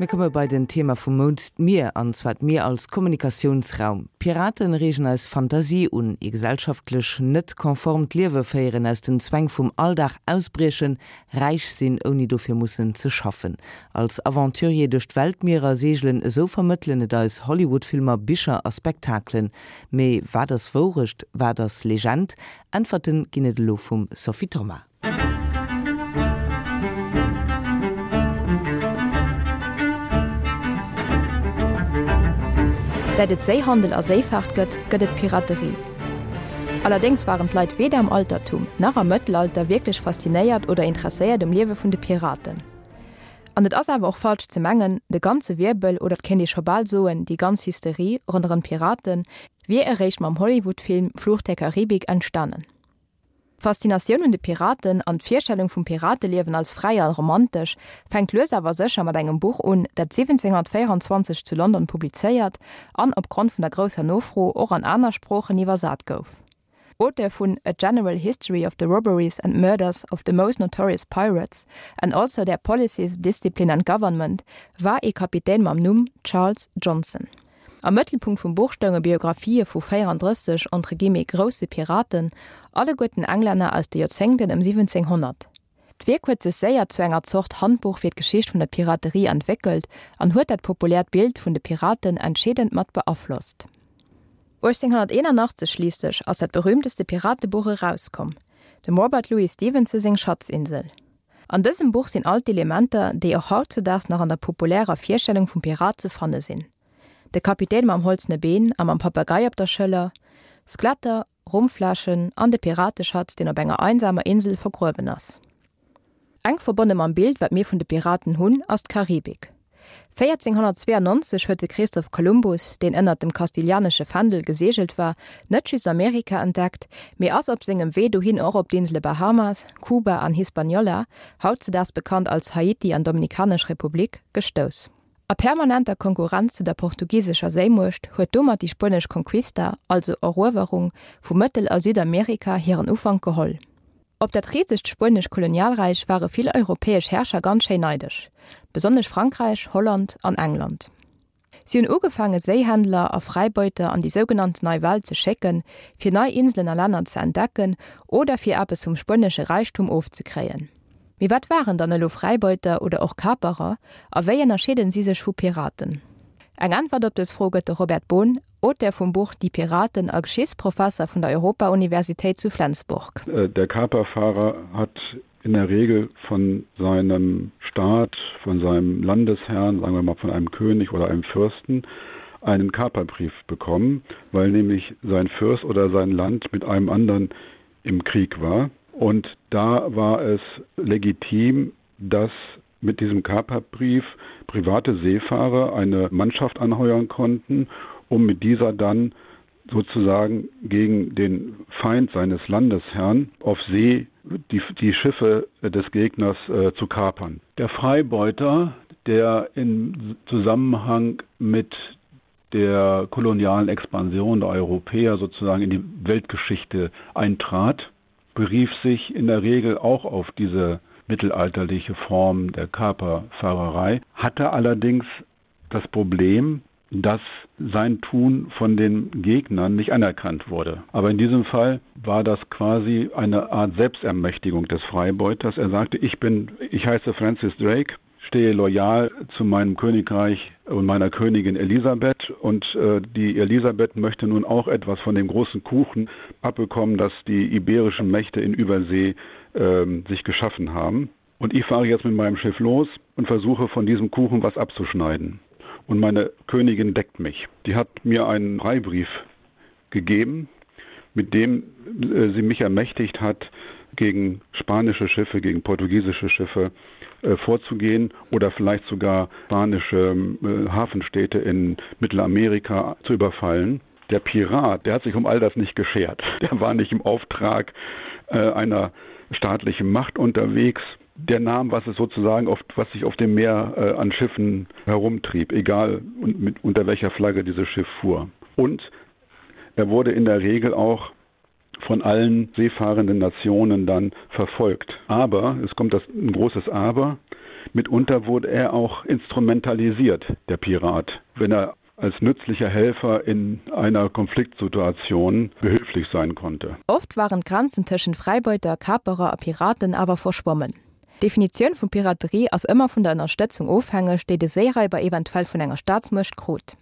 Mir komme bei den Thema vum Mount, d'Mier, an zwar d'Mier als Kommunikatiounsraum. Piraten reegen eis Fantasie un, ee gesellschaftlech net konformt Liewe féieren, aus den Zwäng vum Alldag ausbriechen, räich sinn ouni dofir mussen ze schaffen, als Aventurier duerch d'Weltmierer seegelen, esou vermëttelen et eis Hollywood-Filmer, Bicher a Spektakelen. Mee wat ass Wourecht, wat ass Legend? Äntwerten ginn et elo vum Sophie Thoma. Säit et Séihandel a Séifaart gëtt, gëtt et Piraterie. Allerdéngs waren d'Leit weder am Altertum nach am Mëttelalter wierklech faszinéiert oder interesséiert um Liewe vun de Piraten. An et ass awer och falsch ze mengen, de ganze Wirbel, oder et kéint ee scho bal soen, déi ganz Hysterie ronderëm d'Piraten, wier eréischt mam Hollywood-Film Fluch der Karibik entstanen. D'Faszinatioun un de Piraten an d'Virstellung vum Pirateliewen als fräi a romantesch fänkt lues awer sécher mat engem Buch un, dat 1724 zu London publizéiert an opgrond vun der grousser Nofro och an aner Sproochen iwwersat gouf. Auteur vun A General History of the Robberies and Murders of the Most Notorious Pirates and also Their Policies, Discipline and Government war ee Kapitän mam Numm Charles Johnson. Am Mëttelpunkt vum Buch stounge Biographië vu 34 entre guillemets grousse Piraten, alleguerten Englänner aus de Joerzéngten ëm 1700. D'Wierk huet sech séier zu enger Zort Handbuch fir d'Geschicht vun der Piraterie entwéckelt an huet dat populäert Bild vun de Piraten entscheedend mat beaflosst. 1881 schliisslech ass dat berüümteste Piratebuch erauskomm, dem Robert Louis Stevenson seng Schatzinsel. An dësem Buch sinn all d'Elementer, déi och hautzedaags nach an der populärer Virstellung vum Pirat ze fanne sinn, de Kapitän mam holzene Been a mam Papagei op der Schëller, Skeletter, Rumfläschen an de Pirateschatz, deen op enger einsamer Insel vergruewen ass. Enk verbonne mam Bild, wat mir vun de Piraten hunn, ass d'Karibik. 1492 huet de Christoph Kolumbus, deen ënnert dem kastilianesche Fändel geseegelt war, net just Amerika entdeckt, mee ass op sengem Wee dohin och op d'Insele Bahamas, Kuba an Hispaniola, hautzedaags bekannt als Haiti an Dominikanesch Republik, gestouss. A permanenter Konkurrenz zu der portugisescher Séimuecht huet domat déi spuenesch Conquista, also Eruewerung, vu Mëttel a Südamerika hiren Ufank geholl. Op dat risegt spuenesch Kolonialräich ware vill europäesch Herrscher ganz schéin neidesch, besonnesch Frankräich, Holland an England. Si hunn ugefaange Séihändler a Fräibeuter an déi sougenannten Nei Welt ze schécken, fir nei Inselen a Länner ze entdecken oder fir eppes vum spuenesche Räichtum ofzekréien. Mee wat waren dann elo Fräibeuter oder och Kaperer a wéi ënnerscheeden si sech vu Piraten? Eng Äntwert op dës Fro gëtt de Robert Bohn, Auteur vum Buch Die Piraten a Geschichtsprofesser vun der Europa-Universitéit zu Flensburg. Der Kaperfahrer hat in der Regel von seinem Staat, von seinem Landesherrn, sagen wir mal von einem König oder einem Fürsten, einen Kaperbrief bekommen, weil nämlich sein Fürst oder sein Land mit einem anderen im Krieg war. Und da war es legitim, dass mit diesem Kaperbrief private Seefahrer eine Mannschaft anheuern konnten, um mit dieser dann sozusagen gegen den Feind seines Landesherrn auf See die, die Schiffe des Gegners äh, zu kapern. Der Freibeuter, der in Zusammenhang mit der kolonialen Expansion der Europäer sozusagen in die Weltgeschichte eintrat, berief sich in der Regel auch auf diese mittelalterliche Form der Kaperfahrerei, hatte allerdings das Problem, dass sein Tun von den Gegnern nicht anerkannt wurde. Aber in diesem Fall war das quasi eine Art Selbstermächtigung des Freibeuters. Er sagte: ich bin ich heiße Francis Drake, stehe loyal zu meinem Königreich und meiner Königin Elisabeth und äh, die Elisabeth möchte nun auch etwas von dem großen Kuchen abbekommen, das die iberischen Mächte in Übersee äh, sich geschaffen haben. Und ich fahre jetzt mit meinem Schiff los und versuche von diesem Kuchen was abzuschneiden. Und meine Königin deckt mich. Die hat mir einen Freibrief gegeben, mit dem äh, sie mich ermächtigt hat, gegen spanische Schiffe, gegen portugiesische Schiffe äh, vorzugehen oder vielleicht sogar spanische äh, Hafenstädte in Mittelamerika zu überfallen. Der Pirat, der hat sich um all das nicht geschert. Der war nicht im Auftrag äh, einer staatlichen Macht unterwegs. Der nahm, was es sozusagen oft, was sich auf dem Meer äh, an Schiffen herumtrieb, egal und mit, unter welcher Flagge dieses Schiff fuhr. Und er wurde in der Regel auch von allen seefahrenden Nationen dann verfolgt. Aber es kommt das ein großes Aber. Mitunter wurde er auch instrumentalisiert, der Pirat, wenn er als nützlicher Helfer in einer Konfliktsituation behilflich sein konnte. Oft waren d'Grenzen tëschent Fräibeuter, Kaperer a Piraten awer verschwommen. D'Definitioun vu Piraterie ass ëmmer vun der Ënnerstëtzung ofhängeg, déi de Séiraiber eventuell vun enger Staatsmuecht krut.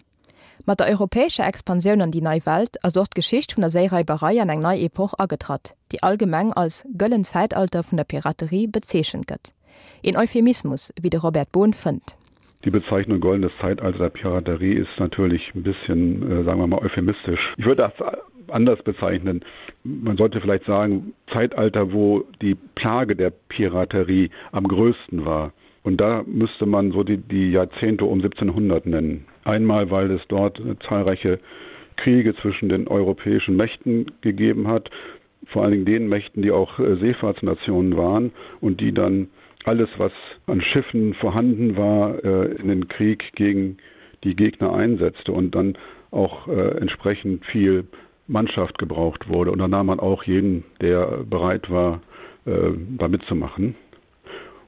Mat der europäescher Expansioun an déi Nei Welt ass och d'Geschicht vun der Séiraiberei an eng nei Epoch agetratt, déi allgemeng als Gëllen Zäitalter vun der Piraterie bezeechent gëtt. Een Euphemismus, wéi de Robert Bohn fënnt. Die Bezeichnung goldenes Zeitalter der Piraterie ist natürlich ein bisschen, äh, sagen wir mal, euphemistisch. Ich würde das anders bezeichnen. Man sollte vielleicht sagen, Zeitalter, wo die Plage der Piraterie am größten war. Und da müsste man so die, die Jahrzehnte um 1700 nennen. Einmal, weil es dort zahlreiche Kriege zwischen den europäischen Mächten gegeben hat, vor allen Dingen den Mächten, die auch äh, Seefahrtsnationen waren und die dann alles, was an Schiffen vorhanden war, äh, in den Krieg gegen die Gegner einsetzte und dann auch äh, entsprechend viel Mannschaft gebraucht wurde. Und da nahm man auch jeden, der bereit war, da mitzumachen.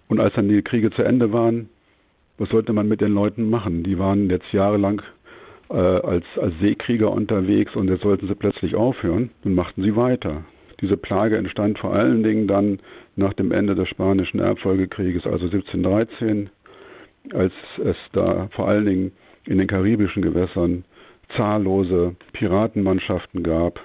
Und als dann die Kriege zu Ende waren, was sollte man mit den Leuten machen? Die waren jetzt jahrelang äh, als, als Seekrieger unterwegs und jetzt sollten sie plötzlich aufhören. Nun machten sie weiter. Diese Plage entstand vor allen Dingen dann nach dem Ende des spanischen Erbfolgekrieges, also 1713, als es da vor allen Dingen in den karibischen Gewässern zahllose Piratenmannschaften gab,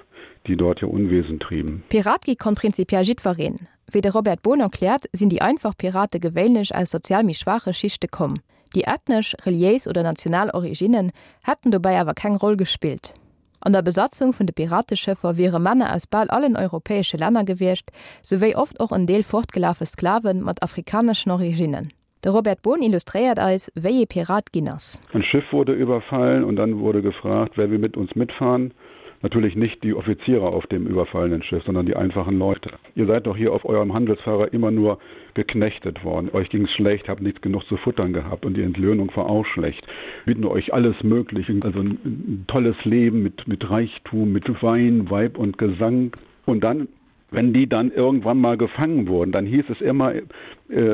die dort ihr Unwesen trieben. Pirat gi konnt prinzipiell jiddwereen. Wéi de Robert Bohn erkläert, sinn déi einfach Pirate gewéinlech aus sozial méi schwaache Schichte komm. Déi ethnesch, reliéis oder national Originnen hätten dobäi awer keng Roll gespillt. An der Besatzung vun de Pirateschëffer wiere Männer aus bal allen europäesche Länner gewiescht, souwéi oft och en Deel fortgelafe Sklave mat afrikaneschen Originnen. De Robert Bohn illustréiert eis, wéi ee Pirat ginn ass. Ein Schiff wurde überfallen und dann wurde gefragt, wer will mit uns mitfahren? Natürlich nicht die Offiziere auf dem überfallenen Schiff, sondern die einfachen Leute. Ihr seid doch hier auf eurem Handelsfahrer immer nur geknechtet worden. Euch ging es schlecht, habt nichts genug zu futtern gehabt und die Entlöhnung war auch schlecht. Bieten euch alles Mögliche, also ein, ein tolles Leben mit, mit Reichtum, mit Wein, Weib und Gesang. Und dann wenn die dann irgendwann mal gefangen wurden, dann hieß es immer äh,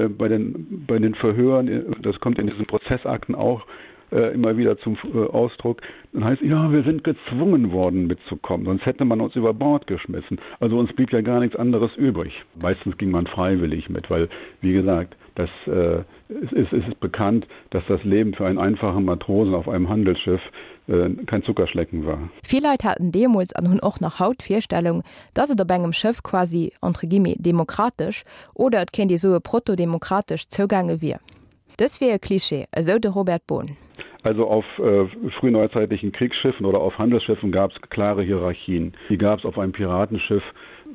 bei, den, bei den Verhören, äh, das kommt in diesen Prozessakten auch äh, immer wieder zum äh, Ausdruck, dann heißt ja, wir sind gezwungen worden mitzukommen, sonst hätte man uns über Bord geschmissen. Also uns blieb ja gar nichts anderes übrig. Meistens ging man freiwillig mit, weil wie gesagt, das äh, es ist, es ist bekannt, dass das Leben für einen einfachen Matrosen auf einem Handelsschiff äh, kein Zuckerschlecken war. Vill Leit haten deemools an hunn och nach haut d'Virstellung, dass et op engem Schëff quasi, entre guillemets, demokratesch, oder et kéint ee soe protodemokratesch, zougaange wier. Dës wier e Klischee, esou de Robert Bohn. Also auf äh, frühneuzeitlichen Kriegsschiffen oder auf Handelsschiffen gab es klare Hierarchien. Die gab es auf einem Piratenschiff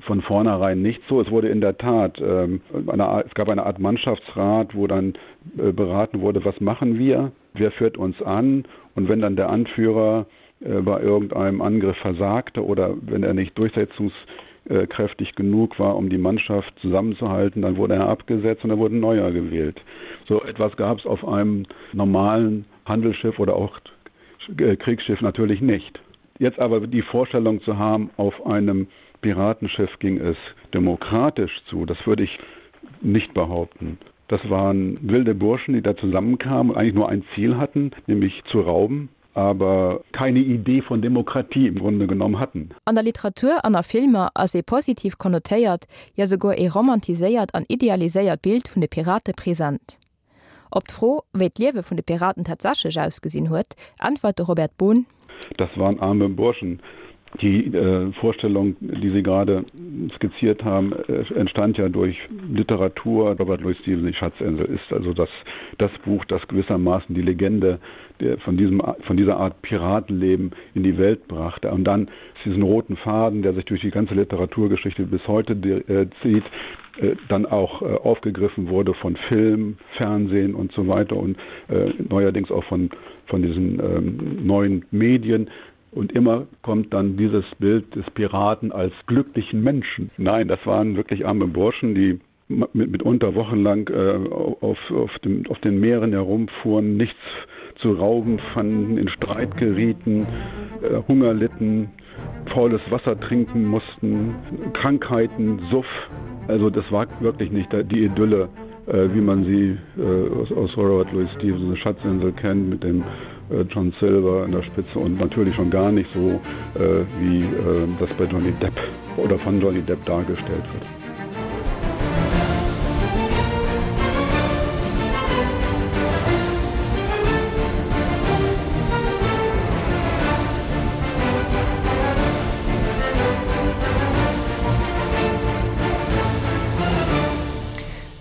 von vornherein nicht so. Es wurde in der Tat ähm, eine, es gab eine Art Mannschaftsrat, wo dann äh, beraten wurde, was machen wir, wer führt uns an und wenn dann der Anführer äh, bei irgendeinem Angriff versagte oder wenn er nicht durchsetzungskräftig genug war, um die Mannschaft zusammenzuhalten, dann wurde er abgesetzt und er wurde neuer gewählt. So etwas gab es auf einem normalen Handelsschiff oder auch äh, Kriegsschiff natürlich nicht. Jetzt aber die Vorstellung zu haben, auf einem Piratenschiff ging es demokratisch zu, das würde ich nicht behaupten. Das waren wilde Burschen, die da zusammenkamen und eigentlich nur ein Ziel hatten, nämlich zu rauben, aber keine Idee von Demokratie im Grunde genommen hatten. An der Literatur an a Filmer ass ee positiv konnotéiert, jo souguer ee romantiséiert an idealiséiert Bild vun de Pirate present. Op d'Fro, wéi d'Liewe vun de Piraten tatsächlech ausgesinn huet, äntwert de Robert Bohn. Das waren arme Burschen. Die äh, Vorstellung, die Sie gerade skizziert haben, äh, entstand ja durch Literatur. Robert Louis Stevenson, die Schatzinsel, ist also das, das Buch, das gewissermaßen die Legende der, von, diesem, von dieser Art Piratenleben in die Welt brachte. Und dann diesen roten Faden, der sich durch die ganze Literaturgeschichte bis heute äh, zieht, äh, dann auch äh, aufgegriffen wurde von Film, Fernsehen und so weiter und äh, neuerdings auch von, von diesen ähm, neuen Medien. Und immer kommt dann dieses Bild des Piraten als glücklichen Menschen. Nein, das waren wirklich arme Burschen, die mit, mitunter wochenlang äh, auf, auf, dem, auf den Meeren herumfuhren, nichts zu rauben fanden, in Streit gerieten, äh, Hunger litten, faules Wasser trinken mussten, Krankheiten, Suff. Also das war wirklich nicht die Idylle. äh, wie man sie äh, aus, aus Robert Louis Stevenson Schatzinsel kennt mit dem äh, John Silver an der Spitze und natürlich schon gar nicht so äh, wie äh, das bei Johnny Depp oder von Johnny Depp dargestellt wird.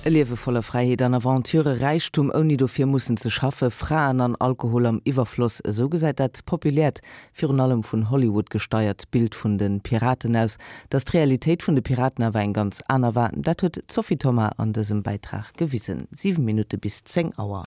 E Liewe voller Fräiheet an Aventure, Räichtum ouni dofir mussen ze schaffe, Fraen an Alkohol am Iwwerfloss, esou gesäit dat populäert, virun allem vun Hollywood gesteiert Bild vun de Piraten aus. Datt d'Realitéit vun de Piraten awer eng ganz aner war, dat huet d'Sophie Thoma an dësem Bäitrag gewisen. 7 Minutte bis 10 Auer.